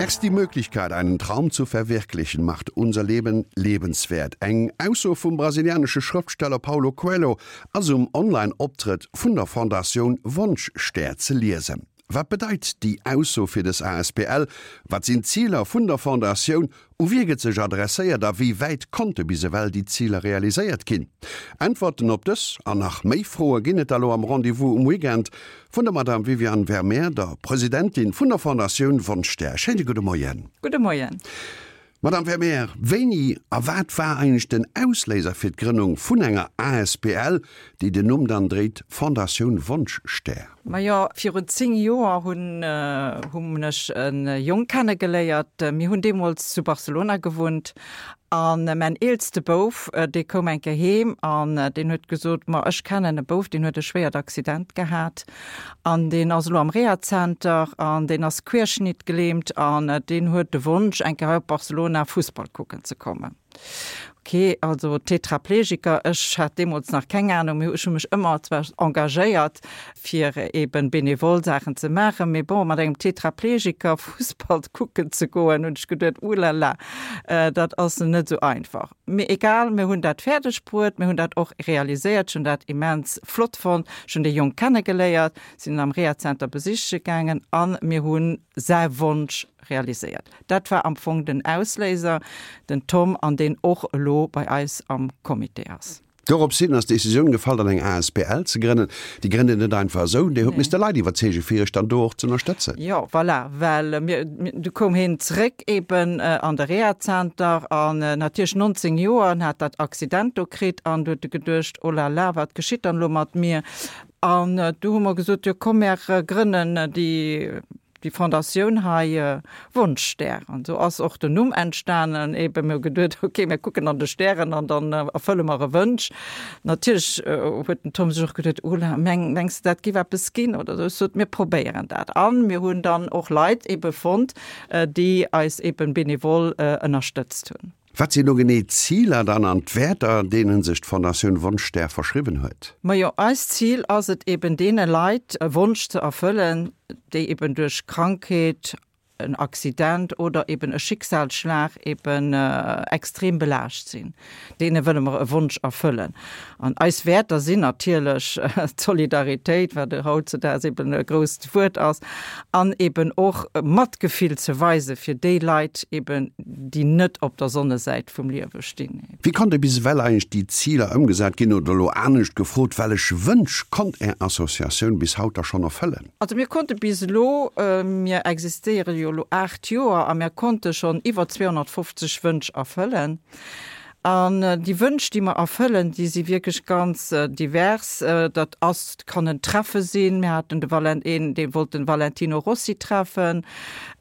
Erst die Möglichkeit, einen Traum zu verwirklichen, macht unser Leben lebenswert. Eng Ausso vum brasilianesche Schrëftsteller Paulo Coelho ass um Online-Optrëtt vun der Fondatioun Wonschstär ze liesen. Wat bedeit déi Ausso fir dës asbl? Wat sinn d'Ziler vun der Fondatioun? U wie gëtt sech adresséiert a wéi wäit konnte bis ewell déi Ziler realiséiert ginn? Äntwerten op dës an nach méi Froe ginn et da lo am Rendez-vous um Weekend vun der Madame Viviane Vermeer, der Presidentin vun der Fondatioun Wonschstär. Schéine gudde Moien. Gudde Moien. Madame Vermeer, wéini a wat war eigentlech den Ausléiser fir d'Grënnung vun enger asbl, déi den Numm dann dréit Fondatioun Wonschstär? Majo, virun 10 Joer hunn hunn ech e Jong kennegeléiert. Mir hunn deemools zu Barcelona gewunnt an mäin eelste Bouf, dee koum eng Kéier heem an deen huet gesot, Ma ech kennen e Bouf, deen huet e schwéiert Accident gehat An deen ass elo am Rehazenter an deen ass querschnittgelähmt an deen huet de Wonsch, eng Kéier hei op Barcelona Fussball kucken ze kommen. Ok, also Tetraplegiker, ech hat deemools nach keng Anung, mee ech hu mech ëmmer zwar engagéiert, fir eben benevol Saachen ze maachen, mee bon, mat engem Tetraplegiker Fussball kucken ze goen, hunn ech geduet, Ulala, dat ass net esou einfach. Mee egal, mir hunn dat fäerdeg bruet, mir hunn dat och realiséiert. Ech hunn dat immens flott fonnt. Ech hunn dee Jong kennegeléiert, sinn en am Rehazenter besiche gaangen a mir hu säi Wonsch realiséiert. Dat war am Fong den Ausléiser, den Tom, an deen och elo bei eis am Comité ass. Dorops hin ass d'Decisioun gefall, dann eng asbl ze grënnen. Déi grënnt een net einfach esou, Dir hutt misste Leit iwwerzeegen, fir Iech dann do och z'ënnerstëtzen. Jo, voilà, well mir, du koum hien zréck eben an de Rehazenter an natierlech 19 Joer an hat dat Accident do kritt an du huet e geduecht, oh la la, wat geschitt dann elo mat mir? An du hu mer gesot, jo komm, mär grënnen déi. Déi Fondatioun hei, Wonschstär, an esou ass och den Numm entstanen. Eben, mir hu geduet, ok, mir kucken an de Stären an dann erfëlle mer e Wënsch. Natierlech huet den Tom sech och geduet, Oh la, meng, mengs de, dat giff eppes ginn oder esou? Ech sot, mir probéieren dat. A mir hunn dann och Leit ebe fonnt, déi eis eben benevol ënnerstëtzt hunn. Wat sinn elo genee d'Ziler dann an d'Wäerter, deene sech d'Fondatioun Wonschstär verschriwwen huet? Majo, eist Zil ass et eben deene Leit e Wonsch ze erfëllen, déi eben duerch Krankheet, en Accident oder eben e Schicksalsschlag eben extrem belaascht sinn. Deene wëlle mer e Wonsch erfëllen. An eis Wäerter sinn natierlech d'Solidaritéit, wat hautzedaags eben e grousst Wuert ass, an eben och Matgefill ze weise fir déi Leit eben, déi net op der Sonnesäit vum Liewe stinn. Wéi konnte bis ewell eigentlech déi Ziler ëmgesat ginn? Oder elo anescht gefrot, Wellech Wënsch konnt Är Associatioun bis haut da schonn erfëllen? Also mir konnte bis elo, mir existéiere jo elo 8 Joer, a mir konnte schonn iwwer 250 Wënsch erfëllen. An déi Wënsch, déi mer erfëllen, déi si wierklech ganz divers. Dat ass, kann en Treffe sinn, mir haten de Valen, een, dee wollt den Valentino Rossi treffen,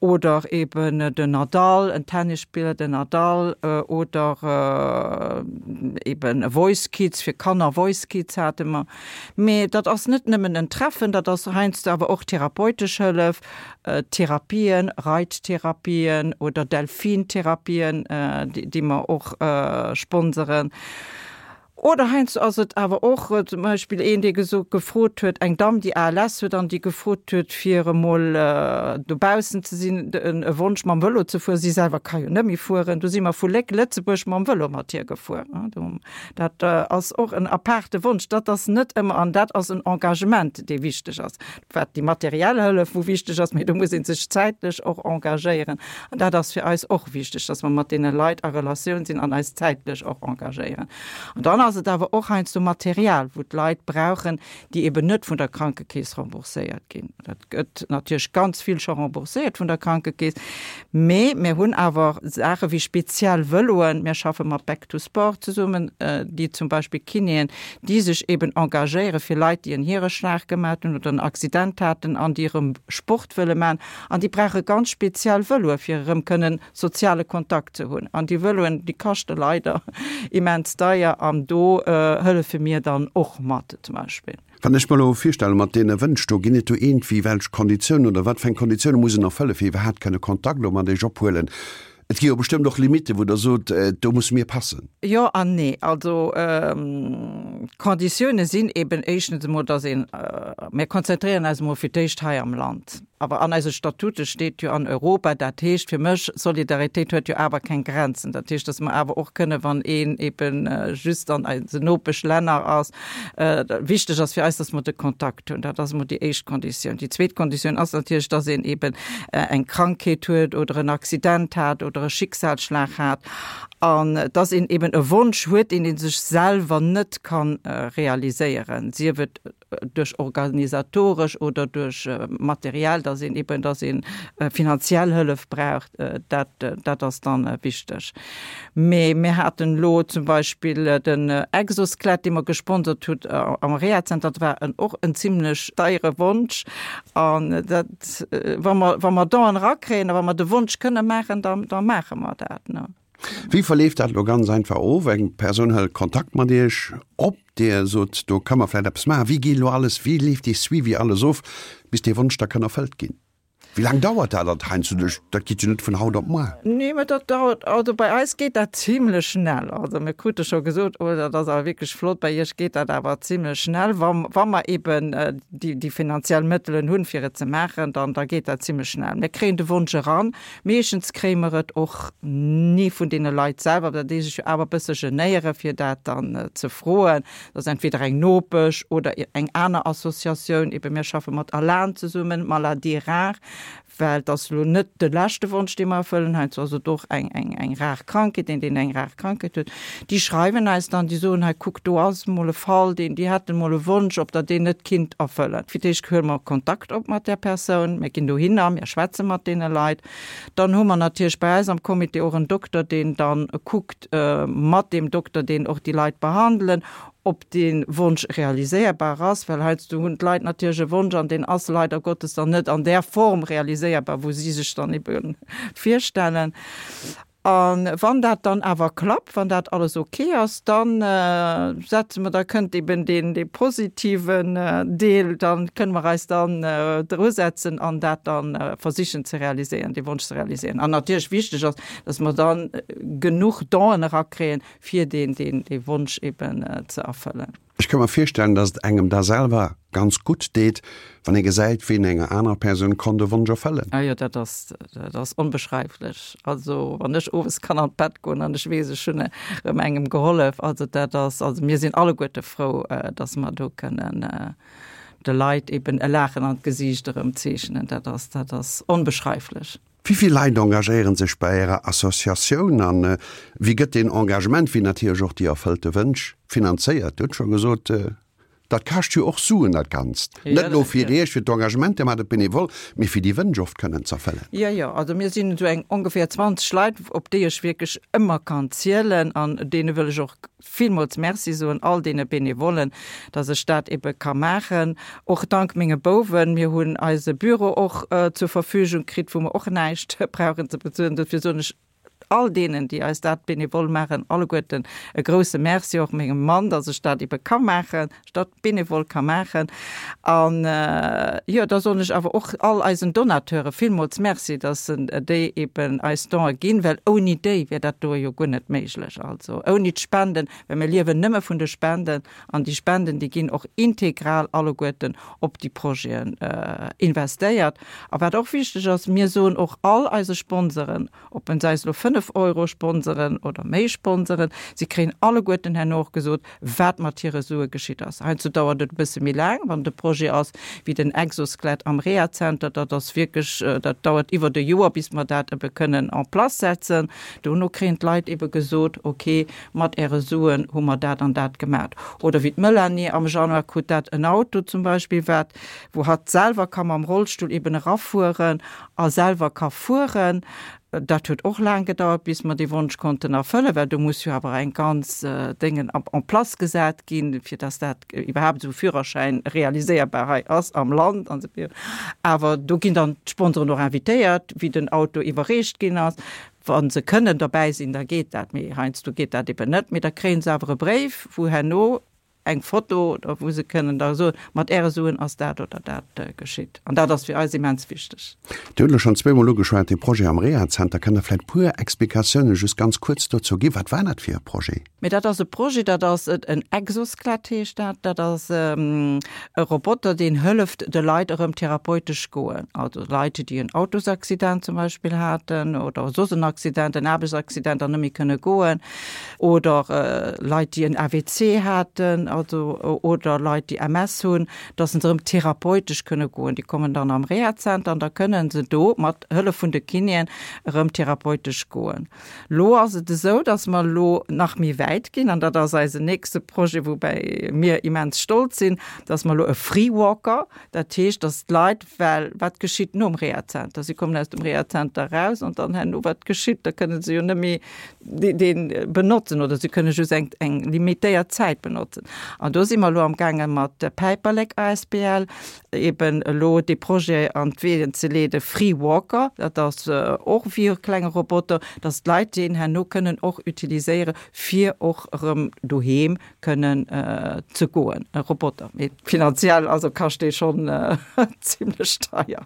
oder eben den Nadal, en Tennisspiller, den Nadal, oder eben e Voice Kids, fir Kanner, Voice Kids hate mer. Mee dat ass net nëmmen en Treffen, dat ass heiansdo awer och therapeutesch Hëllef, Therapien, Reittherapien oder Delfintherapien, déi mer och sponseren. Oder heiansdo ass et awer och zum Beispill een, dee gesot, gefrot huet, eng Damm, déi ALS huet an déi gefrot huet, fir emol dobaussen ze sinn, e Wonsch mam Vëlo ze fueren. Si selwer ka jo net méi fueren. Du si mer vu Léck, Lëtzebuerg, mam Vëlo mat hir gefuer. Dat ass och en apaarte Wonsch. Dat ass net ëmmer, an dat ass en Engagement, dee wichteg ass. Wat déi materiell Hëllef, wou wichteg ass, mee do muss ee sech zäitlech och engagéieren. An dat ass fir eis och wichteg, dass mer mat deene Leit a Relatioun sinn an eis zäitlech och engagéieren. An dann ass et awer och heiansdo Material, wou d'Leit brauchen, déi eben net vun der Krankekeess rembourséiert ginn. Dat gëtt natierlech ganz vill scho rembourséiert vun der Krankekeess, mee mir hunn awer Saache wéi speziell Vëloen. Mir schaffe mat Back to Sport zesummen, déi zum Beispill Kinéen, déi sech eben engagéiere fir Leit, déi en Hiereschlag gemat hunn oder en Accident haten an déi erëm Sport wëlle man. An déi brauche ganz speziell Vëloe fir erëm kënnen soziale Kontakt ze hunn. An déi Vëloen, déi kaschte leider immens deier an do hëllefe mir dann och mat zum Beispill. Wann ech mer elo virstelle mat deene Wënsch do, ginn et do iergendwéi welch Konditiounen oder wat fir eng Konditioune muss en erfëlle fir iwwerhaapt kënne Kontakt elo mat Iech ophuelen? Et gi jo bestëmmt och Limitten, wou Der sot, do musse mir passen. Jo an nee. Also d'Konditioune sinn eben éischtens emol, dass een, mir konzentréieren eis emol fir d'éischt hei am Land, awer an eise Statute steet jo an Europa, dat heescht fir mech, Solidaritéit huet jo awer keng Grenzen. Dat heescht, dass mer awer och kënne wann een eben just an eisen Nopeschlänner ass, Wichteg ass fir eis, dass mer de Kontakt hunn. Dat ass emol déi éischt Konditioun. Déi zweet Konditioun ass natierlech, dass een eben eng Krankheet huet oder en Accident hat oder e Schicksalsschlag hat an dass een eben e Wonsch huet, deen ee sech selwer net ka realiséieren, sief et duerch organisatoresch oder duerch materiell, dass een eben, dass ee finanziell Hëllef braucht. Dat, dat ass dann wichteg. Mee mir haten elo zum Beispill den Exoskelett, dee mer gesponsert hutt am Rehazenter. Dat war en och en zimlech deiere Wonsch. An dat, wa mer, wa mer Donen erakréien a wa mer de Wonsch kënne maachen, da, da maache mer dat, ne. Wéi verleeft dat elo ganz einfach of? Eng Persoun hëlt Kontakt mat Iech op, Dir sot, do ka mer vläicht eppes maachen. Wéi geet elo alles, wéi leeft dee Suivi alles of, bis dee Wonsch da kann erfëllt ginn? Wéi laang dauert dat alt heiansdo? Dat geet jo net vun haut op muar. Nee, mä dat dauert, also bei eis geet dat zimlech schnell. Also mir krute scho gesot, oh dat ass awer wierklech flott, bei iech geet dat awer zimlech schnell. Wa, wa mer eben déi, déi finanziell Mëttelen hunn, fir et ze maachen, dann, da geet dat zimlech schnell. Mir kréien de Wonsch eran. Meeschtens kréie mer et och ni vun deene Leit selwer, well déi sech jo awer e bësse genéiere fir dat dann ze froen. Dat ass entweder eng Nopesch oder eng aner Associatioun. Eben mir schaffe mat ALAN zesummen, Maladies rares, well et ass elo net de leschte Wonsch, dee mer erfëllen. Heiansdo ass et och eng, eng, eng rar Krankheet, een, deen eng rar Krankheet huet. Déi schreiwen eis dann, déi soen, hei kuck, do ass emol e Fall, deen, déi hätten emol e Wonsch, ob Der deen net kinnt erfëllen. Fir d'éischt huele mer Kontakt op mat där Persoun, mir ginn dohinner, mir schwätze mat deene Leit. Dann hu mer natierlech bei eis am Comité och en Dokter, deen dann kuckt mat deem Dokter, deen och déi Leit behandelen, ob dee Wonsch realiséierbar ass, well heiansdo hunn d'Leit natierlech e Wonsch an deen ass leider Gottes dann net an där Form realiséierbar, wou si sech dann ebe virstellen. A wann dat dann awer klappt, wann dat alles ok ass, da setze mer, da kënnt eben deen, dee positiven Deel, da kënne mer eis dann drusetzen an dat da versichen ze realiséieren, dee Wonsch ze realiséieren. An natierlech wichteg ass, dass mer da genuch Donen erakréien, fir deen, deen, dee Wonsch eben ze erfëllen. Ech ka mer virstellen, dass et engem da selwer ganz gutt deet, wann ee gesäit, wéi een enger anerer Persoun konnt e Wonsch erfëllen. Ah jo, dat ass, dat ass onbeschreiflech. Also wann ech owes kann an d'Bett goen an ech weess, ech hunn erëm engem gehollef, also dat ass, also mir sinn alleguerte frou, dass mer do kënnen de Leit eben e Laachen an d'Gesiicht erëm zeechnen. Dat ass, dat ass onbeschreiflech. Wéi vill Leit engagéieren sech bei Ärer Associatioun an wéi gëtt deen Engagement, wéi natierlech och déi erfëllte Wënsch, finanzéiert? Dir hutt scho gesot, dat kascht jo och Suen dat Ganzt. Net elo fir Iech, fir d'Engagement, Dir maacht et benevol, mee fir déi Wënsch oft kënnen z'erfëllen. Jo, jo, also mir sinn esou eng ongeféier 20 Leit, op déi ech wierklech ëmmer kann zielen an deene wëll ech och villmools Merci soen, all deene Benevollen, dass ech dat ebe ka maachen. Och dank menge Bouwen. Mir hunn eise Büro och zur Verfügung kritt, wou mer och näischt brauchen ze bezuelen. Dofir soen ech all deenen, déi eis dat benevol maachen, alleguerten e grouse Merci. Och mengem Mann, dass ech dat ebe ka maachen, ech dat benevol ka maachen. An, jo, da soen ech awer och all eisen Donateure villmools Merci, dass se déi eben eis Donë ginn, well ouni déi wär dat doe jo guer net méiglech. Also ouni d'Spenden, well mir liewen nëmme vun de Spenden an déi Spenden, déi ginn och integral alleguerten op déi Projeten investéiert. A wat och wichteg ass, mir soen och all eise Sponsoren, ob en se eis elo 5 Euro sponseren oder méi sponseren, si kréien alleguerten herno och gesot, wat mat hire Sue geschitt ass. Heiansdo dauert et e bësse méi laang, wann et e Projet ass wéi den Exoskelett am Rehazenter, dat ass wierklech, dat dauert iwwert e Joer, bis mer dat ebe kënnen en place setzen. Dono kréien d'Leit ebe gesot, ok, mat äre Suen hu mer dat an dat gemat. Oder wéi d'Melanie am Januar krut dat en Auto zum Beispill, wat, wou hatt selwer ka mam Rollstull eben erafueren a selwer ka fueren. Dat huet och laang gedauert, bis mer dee Wonsch konnten erfëllen, well do muss jo awer eng ganz Déngen en place gesat ginn, fir dass dat iwwerhaapt esou e Führerschäin realiséierbar hei ass am Land an esou virun. Awer do ginn dann d'Sponsoren och invitéiert, wéi den Auto iwwerreecht ginn ass. Wa se kënnen derbäi sinn, da geet dat, mee heiansdo geet dat eben net. Mee da kréie se awer e Bréif, wou herno. eng Foto oder wou se kënnen da soen, mat Äre Suen ass dat oder dat geschitt. An dat ass fir eis immens wichteg. Dir hutt elo schonn zweemol ugeschwat, dee Projet am Rehazenter. Kënnt Der vläicht e puer Explikatiounen just ganz kuerz dozou ginn? Wat war dat fir e Projet? Mee dat ass e Projet, dat ass en Exoskelett heescht dat. Dat ass e Roboter, deen hëlleft de Leit erëm therapeutesch goen. Also Leit, déi en Autosaccident zum Beispill haten oder soss en Accident, en Aarbechtsaccident an net méi kënne goen oder Leit, déi en AVC haten, also oder Leit, déi MS hunn, dass se erëm therapeutesch kënne goen. Déi kommen dann am Rehazenter an da kënne se do mat Hëllef vun de Kinéen erëm therapeutesch goen. Lo ass et esou, dass mer elo nach méi wäit ginn, an dat ass eisen nächste Projet, woubäi mir immens stolz sinn, dass mer elo e Freewalker, dat heescht, dass d'Leit, well wat geschitt nom Rehazenter? Si kommen aus dem Rehazenter eraus an dann herno, wat geschitt? Da kënne se jo net méi dee benotzen oder se kënne just eng, eng limitéiert Zäit benotzen. An do si mer elo amgaange mat der Päiperlek asbl, eben elo dee Projet an d'Weeën ze leeden, Free Walker, dat ass och wéi e klenge Roboter, dass d'Leit deen herno kënnen och utiliséiere fir och erëm doheem kënnen ze goen, e Roboter. Mee finanziell also kascht dee schonn zimlech deier.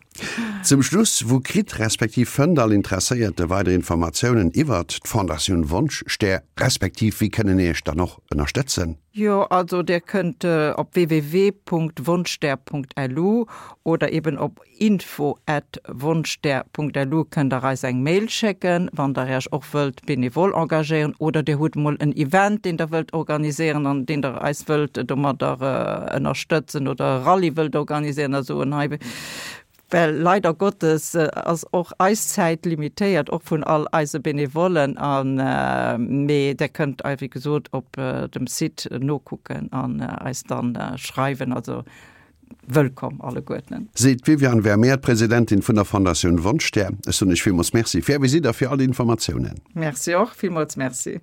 Zum Schluss, Wou kritt respektiv fënnt all Interesséierte weider Informatiounen iwwert d'Fondatioun Wonschstär, respektiv wéi kënnen Iech dann och ënnerstëtzen? Jo, also dir kënnt op www.wonschstär.lu oder eben op info@wonschstär.lu kënnt der eis eng Mail schécken, wann der Iech och wëllt benevol engagéieren oder dir hutt mol en Event, deen der wëllt organiséieren an deen der eis wëllt domadder ënnerstëtzen oder e Rallye wëllt organiséieren a soen, hei Well leider Gottes ass och eis Zäit limitéiert, och vun all eise Benevollen. An, mee Der kënnt ei wéi gesot op dem Site nokucken an eis dann schreiwen. Also wëllkomm alleguerten. Seet d'Viviane Vermeer, d'Presidentin vun der Fondatioun Wonschstär. Ech soen Iech villmools Merci fir Är Visitt a fir all déi Informatiounen. Merci och, villmools Merci.